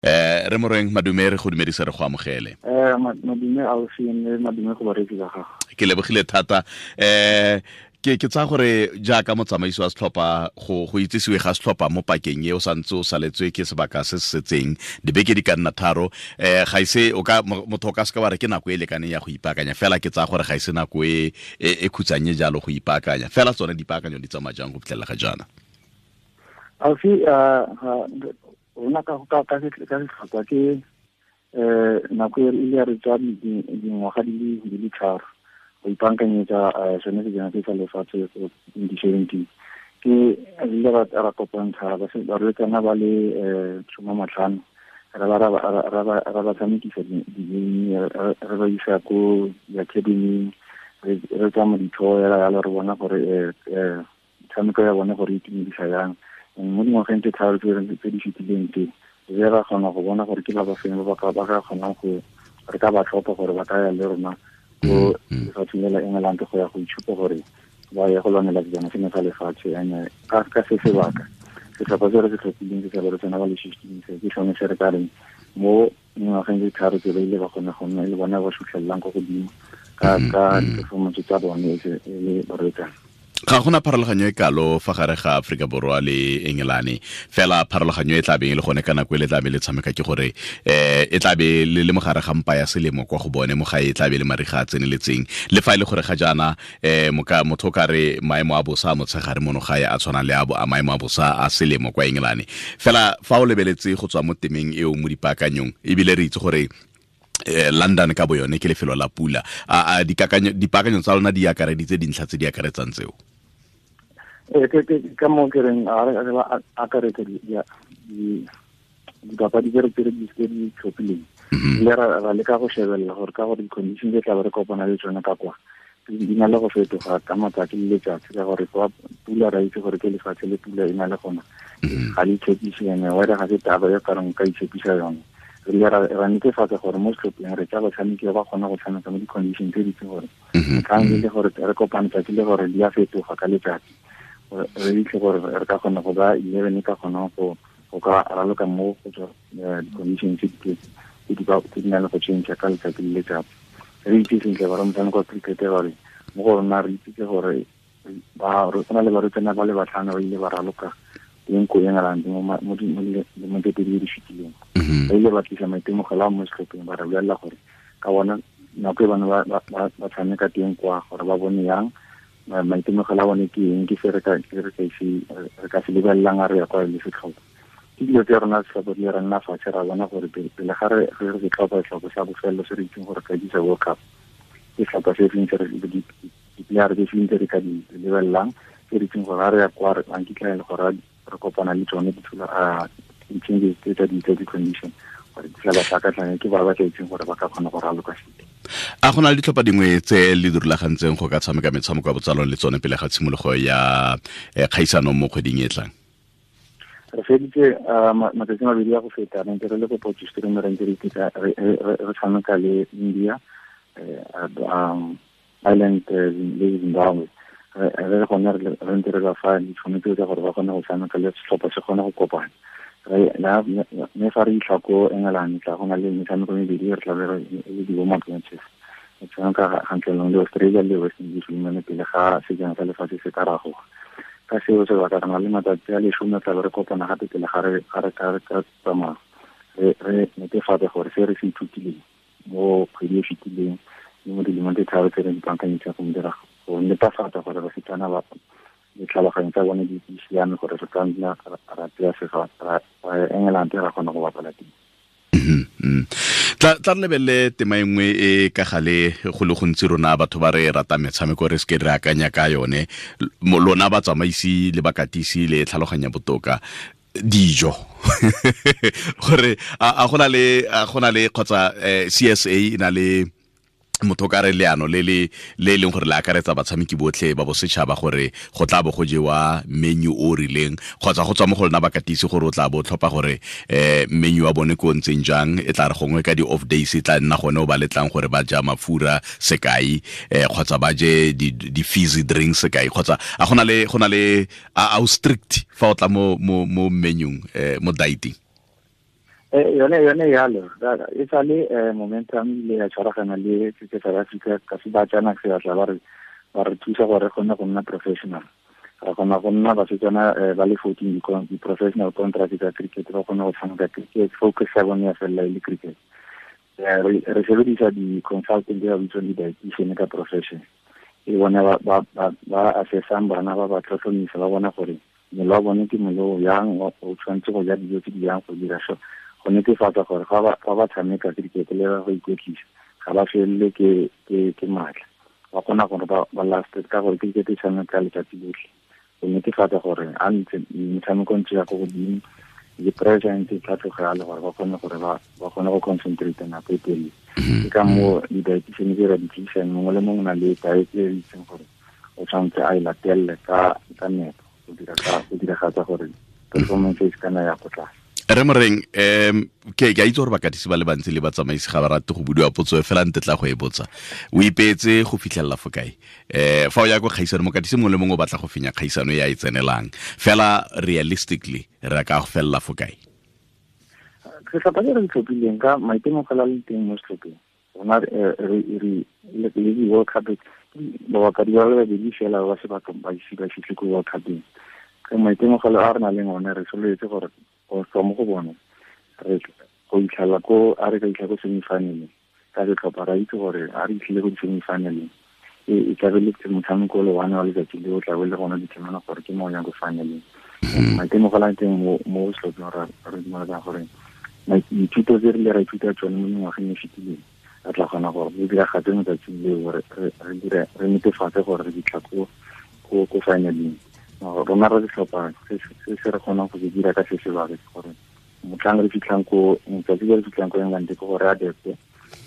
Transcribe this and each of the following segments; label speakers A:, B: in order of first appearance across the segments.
A: Re Moreng, madume, re go dumedisa, re go amogele.
B: Madume ausi, mme madume go bareetsi ba gago.
A: Ke lebogile thata. Ke tsaya gore jaaka motsamaisi wa setlhopha, go itsisiwe ga setlhopha mo pakeng e o santse o saletswe ke sebaka se se setseng dibeke di ka nna 3, ga ise o ka motho o ka seka wa re ke nako e lekaneng ya go ipaakanya, fela ke tsaya gore ga ise nako e khutsanye jalo go ipaakanya. Fela tsone dipaakanyo di tsamaya jang go fitlhelela ga jaana?
B: Ausi, rona ka setlhopha ke nako e ile ya re tswa dingwaga di le 3 go ipaakanyetsa sone sejana se sa lefatshe 2017. Ke re ile ra kopantsha barwetsana ba le 15, ra ba tshamekisa di-game, re ba isa ko di-academy, re tsamaya ditho yalo yalo, re bona gore metshameko ya bone gore e itumedisa yang. Mo dingwageng tse 3 tse di fetileng tse, re ra kgona go bona gore ke ba ba feng ba ka kgonang go re ka ba tlhopha gore ba ka ya le rona ko lefatsheng le la England go ya go itshupa gore ba ye go lwanela sejana seno sa lefatshe. And ka se sebaka, setlhopha se re se tlhophileng se sa barwetsana ba le 15, se ke sone se re ka reng mo dingwageng tse 3 tse ba ile ba kgona go nna e le bona ba sutlhelelang ko godimo ka di-performance tsa bone e le barwetsana.
A: Ga gona pharologanyo e kalo fa gare ga Aforika Borwa le Engelane, fela pharologanyo e tla beng e le gone ka nako e le tla be le tshameka ke gore e tla be le le mogare ga mpa ya selemo kwa go bone, mo gae e tla be le mariga a tseneletseng. Le fa e le gore ga jaana motho o ka re maemo a bosa a motshegare mono gae a tshwana le a maemo a bosa a selemo kwa Engelane. Fela fa o lebeletse go tswa mo temeng eo mo dipaakanyong, ebile re itse gore London ka bo yone ke lefelo la pula, a dipaakanyo tsa lona di akareditse dintlha tse di akaretsang tseo?
B: Ke ka moo ke reng a re ba akaretse dipapadi tse re tse di tlhophileng. Le ra leka go shebelela gore ka gore di-condition tse tla be re kopana le tsone ka kwa di na le go fetoga ka matsatsi le letsatsi, ka gore kwa pula ra itse gore ke lefatshe le pula e na le gona, ga le itshepise, ene weather ga se taba e kareng ka itshepisa yone. Re ile ra netefatsa gore mo setlhopheng re tsa batshameki ba kgona go tshameka mo di-condition tse di itseng gore motlhang e le gore re kopane tsatsi le gore di a fetoga ka letsatsi, re itse gore re ka kgona go ba 11 ka kgona go ka raloka mo go tswa di-condition tse di nang le go change ka letsatsi le letsatsi. Re itse sentle gore motshameko wa cricket gore mo go rona re itse gore go na le barwetsana ba le 5 ba ile ba raloka teng ko England mo dilemong tse 2 di fetileng. Ba ile ba tlisa maitemogelo a mo setlhopheng, ba re bolelela gore ka bona nako e bane ba tshameka teng kwa gore ba bone yang maitemogelo a bone ke eng, ke se re ka se lebelelang a re ya kwa le setlhopha. Ke dilo tse rona setlhopha di re nna fatshe ra bona gore pele ga re se tlhopha setlhopha sa bofelo se re itseng gore ka disa World Cup, ke setlhopha se feng se re di-player tse feng tse re ka di lebelelang, tse re itseng gore ga re ya kwa re nkitla e le gore re kopana le tsone di-changes tse tsa di-condition gore di tla ba tlhakatlhakanya, ke ba ba tla itseng gore ba ka kgona go raloka sentle.
A: A go na le ditlhopha dingwe tse le di rulagantseng go ka tshameka metshameko ya botsalano le tsone pele ga tshimologo ya kgaisano mo kgweding e tlang?
B: Re feditse matsatsi a mabedi a go feta, re ntse re le ko Potchefstroom, re ntse re tshameka le India, Ireland le Zimbabwe. Re gone re ntse re ba fa ditšhono tseo tsa gore ba kgone go tshameka le setlhopha se kgone go kopana. Mme fa re fitlha ko England tla go na le metshameko e mebedi re tla be re le di-warm-up matches. Re tshameka kgatlhanong le Australia le West Indies Women pele ga sejana sa lefatshe se ka ragoga. Ka seo sebaka re na le matsatsi a 10 tla be re kopana gape pele ga re ka tsamaya, re netefatse gore se re se ithutileng mo kgwedi e fetileng le mo dilemong tse 3 tse re di baakanyetseng go dira go netefatsa gore basetsana ba ditlhaloganyo tsa bone di siame gore re ka nna ra tsaya ra England ra kgona go bapala teng.
A: Tla re lebelele tema e nngwe e ka gale go le gontsi rona batho ba re ratang metshameko re seke re akanya ka yone, lona batsamaisi le bakatisi le tlhaloganya botoka dijo gore a go na le kgotsa CSA e na le motho ka re leano le le leng gore le akaretsa batshameki botlhe ba bosetšhaba gore go tla bo go jewa menu o rileng, kgotsa go tswa mo go lona bakatisi gore o tla bo tlhopha gore menu wa bone ko ntseng jang, e tla re gongwe ka di-off days e tla nna gone o ba letlang gore ba ja mafura sekai, kgotsa ba je di-fizzy drinks sekai, kgotsa a go na le a o strict fa o tla mo menung, mo dieting?
B: Yone yalo e sale Momentum ile ya tshwaragana le Cricket South Africa ka se ba tsana se batla ba re thusa gore re kgone go nna professional. Re kgona go nna basetsana ba le 14 di-professional contract tsa cricket, ba kgone go tshameka cricket, focus ya bone ya felela e le cricket. Re sebedisa di-consultant ba bitswang di-dietitian ka profession, e bone ba assessang bana ba tlhotlhomisa, ba bona gore mmele wa bone ke mmele o yang, o tshwanetse go ja dijo tse di yang go dira so, go netefatsa gore fa ba tshameka cricket le ba go ikwetlisa ga ba felele ke maatla, ba kgona gore ba last ka gore cricket e tshameka letsatsi lotlhe, go netefatsa gore a ntse metshameko ntse ya ko godimo le pressure ntse e tlhatlhoga le gore ba kgone gore ba kgone go concentrate nako e telele. Ke ka moo di-dietitian tse ra di tlisang, mongwe le mongwe o na le diet e itseng gore o tshwanetse a e latelele ka nepo go diragatsa gore performance e se kana ya ko tlase.
A: Re Moreng, ke a itse gore bakatisi ba le bantsi le batsamaisi ga ba rate go budiwa potso e fela nte tla go e botsa. O ipeetse go fitlhelela fo kae? Fa o ya ko kgaisano, mokatisi mongwe le mongwe o batla go fenya kgaisano e a e tsenelang. Fela realistically re ka go felela fo kae?
B: Setlhopha se re se tlhophileng ka maitemogelo a le teng mo setlhopheng, rona re le di-World Cup babapadi ba le babedi fela ba se ba ise ba fitlhe ko World Cupeng. Ka maitemogelo a re nang le one re sololetse gore go tswa mo go bone re go itlhela ko a re ka itlha ko semifinaleng ka setlhopha, ra itse gore a re itlhile ko di-semifinaleng e tlabe le motshameko le one wa letsatsi le o tlabe le gone determine gore ke mo o yang ko finaleng. Maitemogelo a teng mo setlhopheng re dumeletsang gore dithuto tse re ile ra ithuta tsone mo mengwageng e fetileng re tla kgona gore re diragatse mo tsatsing leo, re netefatse gore re fitlha ko finaleng. Rona re setlhopha se se re kgonang go se dira ka se sebaka ke gore motlhang re fitlhang ko motsatsi le re fitlhang ko England ke gore re adapte,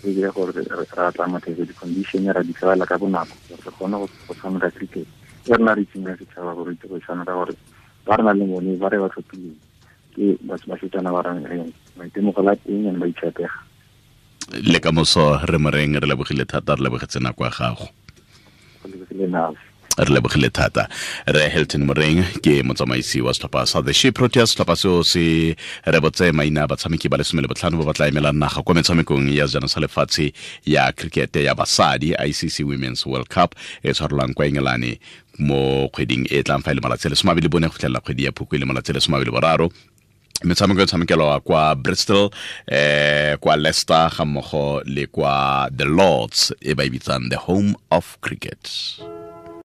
B: re dire gore re atlamathetse di-condition, ra di tlwaela ka bonako gore re kgone go tshameka cricket e rena re itseng ka setšhaba gore itse go e tshameka, gore ba re nang le bone ba re ba tlhophileng ke basetsana ba reng maitemogelo a teng and ba itshepega.
A: Le ka moso re Moreng, re lebogile thata, re lebogetse nako ya gago. Re lebogile thata. Re Hilton Moreng ke motsamaisi wa setlhopha sa The She Proteas, setlhopha seo se rebotse maina a batshameki ba le 15 ba ba tla emelang naga kwa metshamekong ya sejana sa lefatshe ya cricket ya basadi, ICC Women's World Cup e tshwarelwang kwa Engelane mo kgweding e tlang fa e le malatsi a le 24 go fitlhelela kgwedi ya Phukwi e le malatsi a le 23. Metshameko e tshamekelwa kwa Bristol, kwa Leicester ga mmogo le kwa The Lords e ba e bitsang the home of cricket.